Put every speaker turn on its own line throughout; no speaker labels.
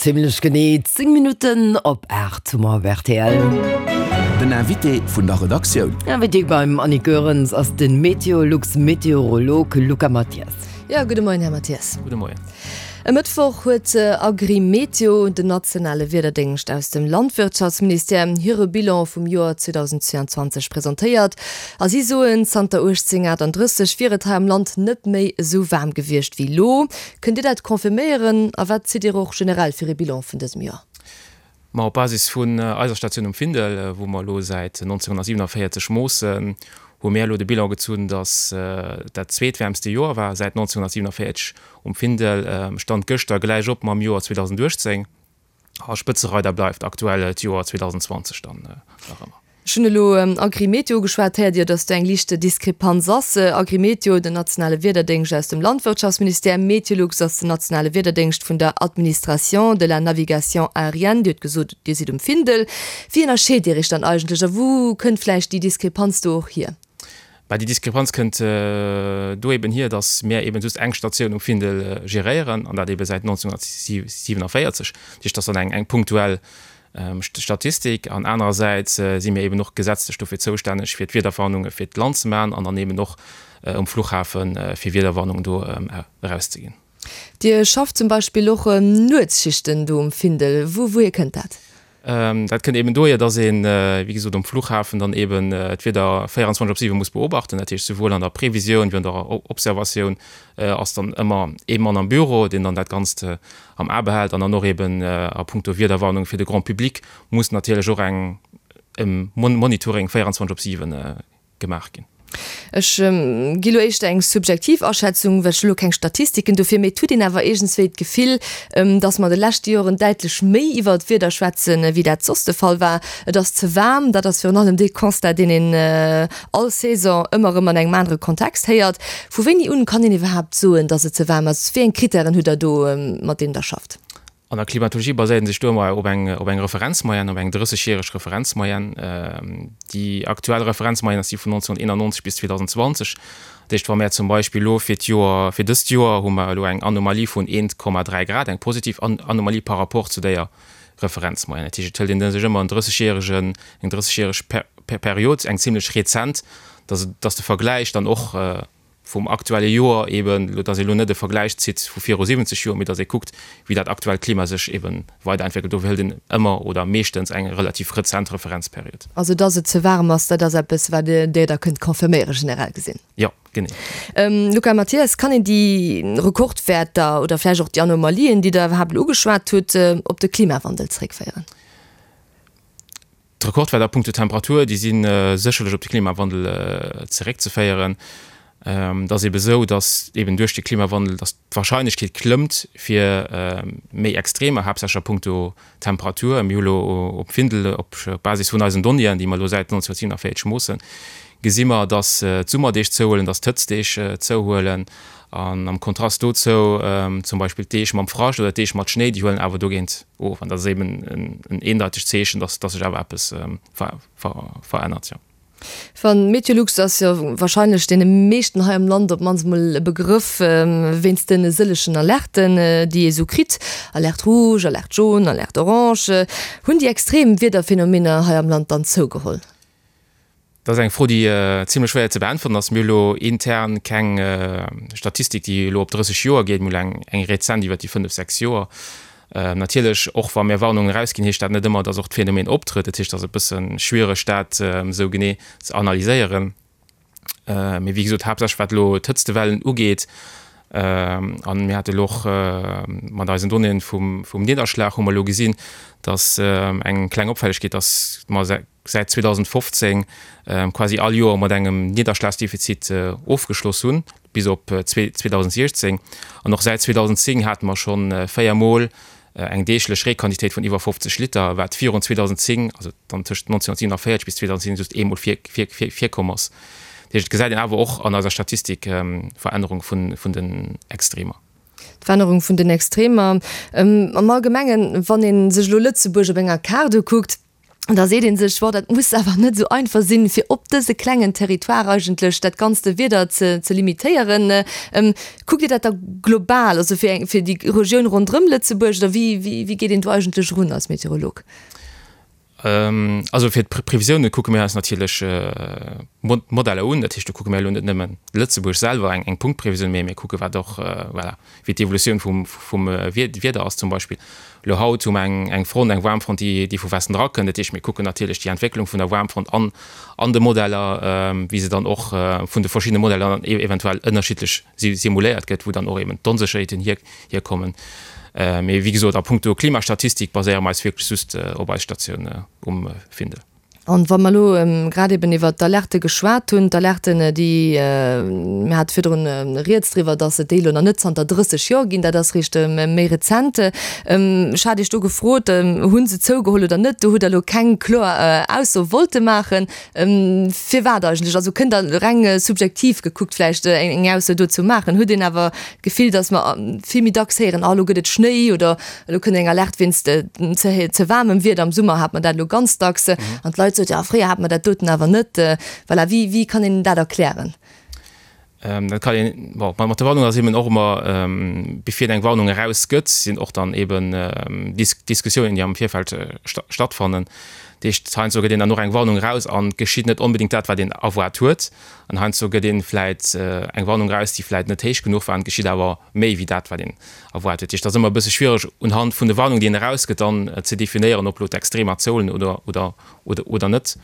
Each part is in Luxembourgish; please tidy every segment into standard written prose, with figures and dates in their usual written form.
Zimlech genee 10 Minutten op 8 hu mer op rtl.
Den Invité vun der Redaktioun.
Invité beim Annick Goerens ass de Meteolux-Meteorolog Luca Mathias.
Jo, gudde Moien, Här Mathias.
Gudde Moien.
E Mëttwoch huet Agrimeteo, den nationale Wiederdéngscht aus dem Landwirtschaftsministère, hire Bilan vum Joer 2022 presentéiert. A si soen, zanter 1838 wier et hei am Land net méi esou waarm gewiescht wéi elo. Kënnt Dir dat confirméieren a wat zitt Dir och generell fir ee Bilan vun dësem Joer?
Ma op Basis vun eiser Statioun um Findel, wou mer elo säit 1947 moossen, hu mir elo de Bilan gezunn, datt dat zweetwäermste Joer war säit 1947 um Findel, Stand gëschter gläich op mam Joer 2018. A Spëtzereider bleift aktuell d'Joer 2020 dann nach ëmmer.
Ech hunn elo Agrimeteo ugeschwat. Héiert Dir, datt do eng liicht Diskrepanz ass? Agrimeteo, den nationale Wiederdéngscht aus dem Landwirtschaftsministère, Meteolux ass den nationale Wiederdéngscht vun der Administration de la navigation aérienne. Dir hutt gesot, Dir sidd um Findel. Wéi ënnerscheet Dir Iech dann eigentlech a wou kënnt vläicht déi Diskrepanz do och hier?
Bah, déi Diskrepanz kënnt do eben hier, datt mär eben just eng Statioun um Findel geréieren, an dat ebe säit 1947. Dat heescht, dat ass dann eng, eng punktuell Statistik. An anerersäits si mir eben och gesetzlech dofir zoustänneg, fir d'Wiederwarnunge fir d'Land ze maachen an dann eben och um Fluchhafe fir Wiederwarnungen do erauszeginn.
Dir schafft zum Beispill och Nuetsschichten do um Findel. Wou, wouhier kënnt dat?
Dat kënnt eben dohier, dass een, wéi gesot, um Flughafen dann eben d'Wieder 24 op 7 muss beobachten. Dat heescht, souwuel an der Previsioun wéi an der Observatioun ass dann ëmmer ee Mann am Büro, deen dann dat Ganzt am A behält. An dann och eben a puncto Wiederwarnung fir de Grand public muss natierlech och eng e Monitoring 24 op 7 gemaach ginn.
Ech gi lo éischter eng subjektiv Aschätzung, well ech hu lo keng Statistiken dofir, mee et huet een awer iergendswéi d'Gefill, dass mer an de leschte Joren däitlech méi iwwer d'Wieder schwätzen, wéi dat soss de Fall war. Et ass ze waarm, dat ass virun allem dee Constat, deen een all Saison ëmmer erëm an engem anere Kontext héiert. Vu wéini un kann een iwwerhaapt soen, dass et ze waarm ass? Wéi eng Krittären hutt Der do, mat deenen Der schafft?
An der Klimatologie baséiert een sech do ëmmer op eng, op eng Referenzmoyenne, op eng 30-järeg Referenzmoyenne. Déi aktuell Referenzmoyenne ass déi vun 1991 bis 2020. Dat heescht, wa mär zum Beispill elo fir d'Joer, fir dëst Joer hu mer elo eng Anomalie vun 1,3 Grad, eng positiv Anomalie par rapport zu déier Referenzmoyenne. Dat heescht, et hëlt een sech ëmmer en 30-järegen, eng 30-järeg Period, eng zimlech rezent, dass, dass de Vergläich dann och, vum aktuelle Joer eben, elo dass ee elo net e Vergläich zitt vu viru 70 Joer, mee dass ee kuckt, wéi dat aktuellt Klima sech ebe weiderentwéckelt. Dofir hëlt een ëmmer oder meeschtens eng relativ rezent Referenzperiod.
Also dass et ze waarem ass, dat ass eppes, wat Dir da kënnt confirméieren, generell gesinn?
Jo, genee.
Luca Mathias, kann een déi Rekordwäerter oder vläicht och déi Anomalien, déi Der iwwerhaapt elo ugeschwat hutt, op de Klimawandel zeréckféieren?
D'Rekordwäerter a punkto Temperatur, déi si sécherlech op de Klimawandel zeréckzeféieren. Et ass ebe sou, datt eben duerch de Klimawandel, datt d'Warscheinlechkeet klëmmt fir méi Extremer, haaptsächlech a punkto Temperatur. Mir hu lo op Findel, op Basis vun eisen Donnéeën, déi mer elo säit 1947 moossen, gesi mer, datt d'Summerdeeg zouhuelen, datt d'Hëtztdeeg zouhuelen. An am Kontrast dozou zum Beispill d'Deeg mam Frascht oder d'Deeg mat Schnéi, déi huelen awer dogéint of. An dat ass eben en eendeitegt Zeechen, dass sech awer eppes verännert, jo.
Van Meteolux ass jo warscheinlech deene meeschten hei am Land op d'mannst emol e Begrëff, wéinst de sëllegen Alerten, déi ee sou kritt, Alerte rouge, Alerte jaune, Alerte orange. Hunn déi extrem Wiederphenomener hei am Land dann zougeholl?
Dat ass eng Fro, déi zimlech schwéier ze beäntweren ass. Mir hu lo intern keng Statistik, déi elo op 30 Joer geet. Mir hu eng, eng rezent iwwer déi fënnef, sechs Joer. Natierlech, och wa mir Warnungen erausginn, heescht dat net ëmmer, datt och d'Phänomen optrëtt. Dat heescht, et ass e bësse schwiereg, dat esou genee ze analyséieren. Mee wéi gesot, haaptsächlech wat elo d'Hëtztewellen ugeet, an mir hate elo och mat eisen Donnéeën vum, vum Nidderschlag hu mer elo gesinn, datt eng kleng Opfällegkeet, datt mer säit 2015 quasi all Joer mat engem Nidderschlagsdefizit ofgeschloss hunn, bis op 2016. An och säit 2010 hate mer scho 4 Mol eng deeglech Reequantitéit vun iwwer 50 Liter, wat virun 2010, also dann tëscht 1947 bis 2010, just eemol virkomm ass. Dat heescht, et gesäit een awer och an eiser Statistik Verännerung vun den Extremer.
D'Verännerung vun den Extremer am Allgemengen, wann ee sech elo Lëtzebuerg op enger Kaart ukuckt. Da seet ee sech, Bon, dat muss awer net esou einfach sinn, fir op dëse klengen Territoire eigentlech dat ganzte Wieder ze ze limitéieren. Kuckt Dir dat da global, also fir eng, fir déi Regioun ronderëm Lëtzebuerg, oder wéi, wéi, wéi geet een do eigentlech erun als Meteorolog?
Also fir d'Previsioune kucke mir eis natierlech d'Modeller un. Dat heescht, do kucke mir elo net nëmmen Lëtzebuerg selwer, eng Punktprevisioun, mee mir kucke wat och, voilà, wéi d'Evolutioun vum Wieder ass zum Beispill. Elo haut hu mer eng Front, eng Waarmfront, déi vu Westen erakënnt. Dat heescht, mir kucken natierlech déi Entwécklung vun der Waarmfront an an de Modeller, wéi se dann och vun de verschiddene Modeller dann eventuell ënnerschiddlech simuléiert gëtt, wou dann och eben d'Onsécherheeten hierkommen. Mee wéi gesot, a punkto Klimastatistik baséiere mer eis wierklech just op eis Statioun um Findel.
An wa mer elo grad eben iwwert d'Alerte geschwat hunn, d'Alerten, déi, mir hate virdrun rieds driwwer, dass et déi elo nach net zanter 30 Joer ginn, dat ass réischt méi rezent. Ech hat Iech do gefrot, hu se zougeholl oder net? Do hutt Der elo keng kloer Ausso wollte maachen. Firwat eigentlech? Also kënnt Der reng subjektiv gekuckt vläicht eng Ausso dozou maachen? Huet een awer d'Gefill, dass mer vill méi dacks héieren, ah elo gëtt et Schnéi oder elo kënnt eng Alerte wéinst ze waarmem Wieder. Am Summer hat mer dat elo ganz dacks an d'Leit soten, jo fréier hat mer dat doten awer net. Voilà, wéi, wéi kann een dat erklären?
Dat kann een, bon, mat der Warnung ass eben och ëmmer, bevir eng Warnung erausgëtt, sinn och dann eben Diskussiounen, déi am Virfeld stattfannen. Dat heescht, heiansdo gëtt een dann och eng Warnung eraus an et geschitt net onbedéngt dat, wat een erwaart huet. An heiansdo gëtt ee vläit eng Warnung eraus, déi vläit net héich genuch war, an et geschitt awer méi wéi dat, wat een erwaart huet. Dat heescht, et ass ëmmer e bësse schwiereg, unhand vun de Warnungen, déi een erausgëtt, dann ze definéieren, ob elo d'Extremer zouhuelen oder, oder, oder, oder net.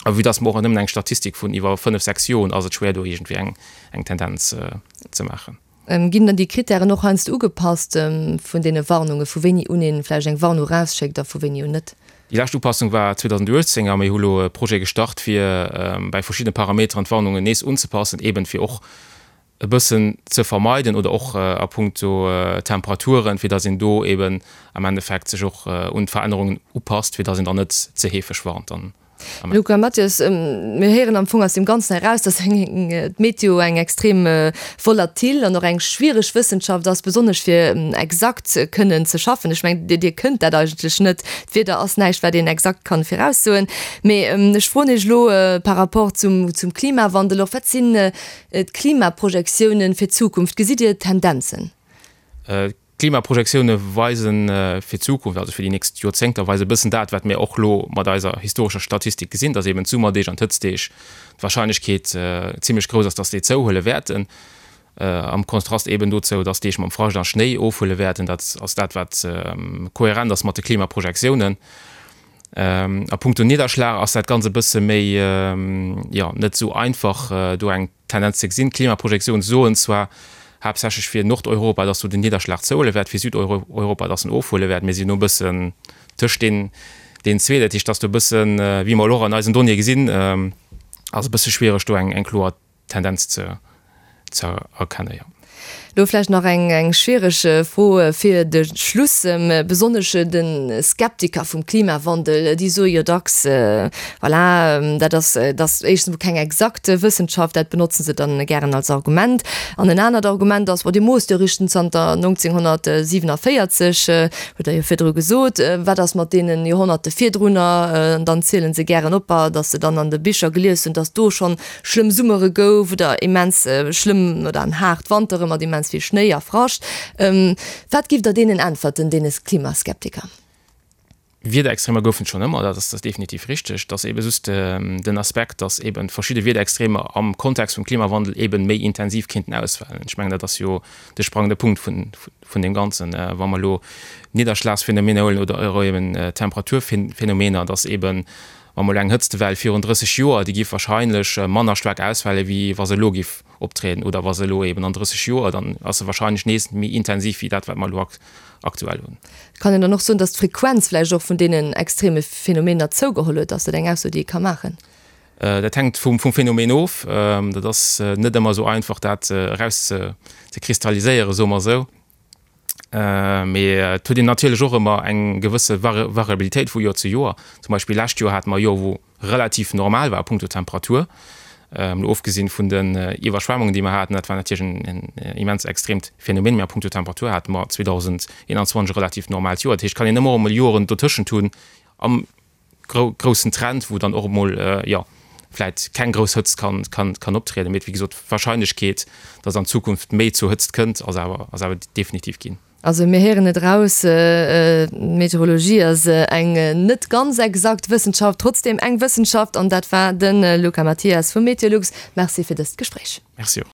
A vue dass mer och nëmmen eng Statistik vun iwwer fënnef, sechs Joer hunn, ass et schwéier, do iergendwéi eng, eng Tendenz ze maachen.
Ginn dann déi Krittären och heiansdo ugepasst vun deene Warnungen, vu wéini un ee vläicht eng Warnung erausschéckt a vu wéini un net?
Déi lescht Upassung war 2018 a mir hu lo e Projet gestart, fir bäi verschiddene Parameteren d'Warnungen nees unzepassen, eeben fir och e bëssen ze vermeiden oder och a punkto Temperaturen, fir datt een do eeben am Endeffekt sech och un d'Verännerungen upasst, fir datt een dann net ze heefeg warnt dann.
Luca Mathias, Mir héieren am Fong aus deem Ganzen eraus, datt d'Meteo eng extrem volatil an och eng schwiereg Wëssenschaft ass, besonnesch fir exakt kënnen ze schaffen. Ech mengen, Dir kënnt dat eigentlech net. D'Wieder ass näischt, wat een exakt kann viraussoen. Mee ech froen Iech elo par rapport zum Klimawandel och, Wat sinn d'Klimaprojektiounen fir d'Zukunft? Gesitt Dir Tendenzen?
D'Klimaprojektioune weise fir d'Zukunft, also fir déi nächst Joerzéngter, weise e bëssen dat, wat mir och elo mat eiser historescher Statistik gesinn, dass eben d'Summerdeeg an d'Hëtztdeeg d'Warscheinlechkeet zimmlech grouss ass, dass déi zouhuele wäerten, am Kontrast eben dozou, dass Deeg mam Frascht a Schnéi ofhuele wäerten. Dat ass dat, wat kohärent ass mat de Klimaprojektiounen. A punkto Nidderschlag ass dat Ganzt e bësse méi, jo, net esou einfach do eng Tendenz ze gesinn. D'Klimaprojektioune soen zwar haaptsächlech fir Nordeuropa, dass do den Nidderschlag zouhuele wäert, fir Südeuropa, dass en ofhuele wäert. Mir sinn elo e bëssen tëscht deenen zwee. Dat heescht, dass do e bëssen, wéi mer elo och an eisen Donnéeë gesinn, ass e bësse schwiereg do eng kloer Tendenz ze erkennen, jo.
Lo vläicht nach eng schwiereg Fro fir de Schluss. Besonnesch de Skeptiker vum Klimawandel, déi soe jo dacks, voilà, dat ass, dat ass éischtens emol keng exakt Wëssenschaft, dat benotzen se dann gären als Argument. An en anert Argument ass, bon, Dir moosst jo eréischt zanter 1947, hutt Der jo virdru gesot, wat ass mat deenen Joerhonnerte virdrunner? An dann ziele se gären op, datt se dann an de Bicher gelies hunn, datt do schonn schlëmm Summere gouf oder immens schlëmm oder an haart Wantere mat immens vill Schnéi a Frascht. Wat giff Der deenen äntwerten, deene Klimaskeptiker?
Wiederextremer goufen et schonn ëmmer, dat ass definitiv richteg. Et ass eebe just den Aspekt, datt eebe verschidde Wiederextremer am Kontext vum Klimawandel eebe méi intensiv kéinten ausfalen. Ech mengen, dat ass jo de sprangende Punkt vun deem Ganzen. Wa mer elo Nidderschlagsphänomener huelen oder eeben Temperaturphänomener, datt eeben Wa mol eng Hëtztwell virun 30 Joer, déi giff wahrscheinlech manner staark ausfale wéi wa se elo giff optrieden, oder wa se elo eben an 30 Joer, dann ass se wahrscheinlech nees méi intensiv wéi dat wat mer elo aktuell hunn.
Kann een dann och soen, datt d'Frequenz vläicht och vun deenen extreme Phänomener zougeholl huet? Ass dat eng Ausso déi ee ka maachen?
Dat hänkt vum Phänomen of. Dat ass net ëmmer esou einfach dat eraus ze kristalliséieren, soe mer esou. Mee et huet een natierlech och ëmmer eng gewësse Variabilitéit vu Joer zu Joer. Zum Beispill lescht Joer hate mer e Joer, wou relativ normal war a punkto Temperatur, mol ofgesinn vun den Iwwerschwemmungen, déi mer haten. Dat war natierlech en immens extreemt Phänomen, mee a punkto Temperatur hate mer 2021 e relativ normaalt Joer. Dat heescht, et kann een ëmmer och emol Joren dotëschent hunn am. groussen Trend, wou dann och emol, jo, vläit keng grouss Hëtzt kann, kann, kann optrieden. Mee wéi gesot, d'Warscheinlechkeet, dass an Zukunft méi zu Hëtzt kënnt, ass awer, ass awer definitiv ginn.
Also mir héieren et eraus, d'Meteorologie ass eng net ganz exakt Wëssenschaft, trotzdeem eng Wëssenschaft. An dat war de Luca Mathias vu Meteolux. Merci fir dëst Gespréich.
Merci och.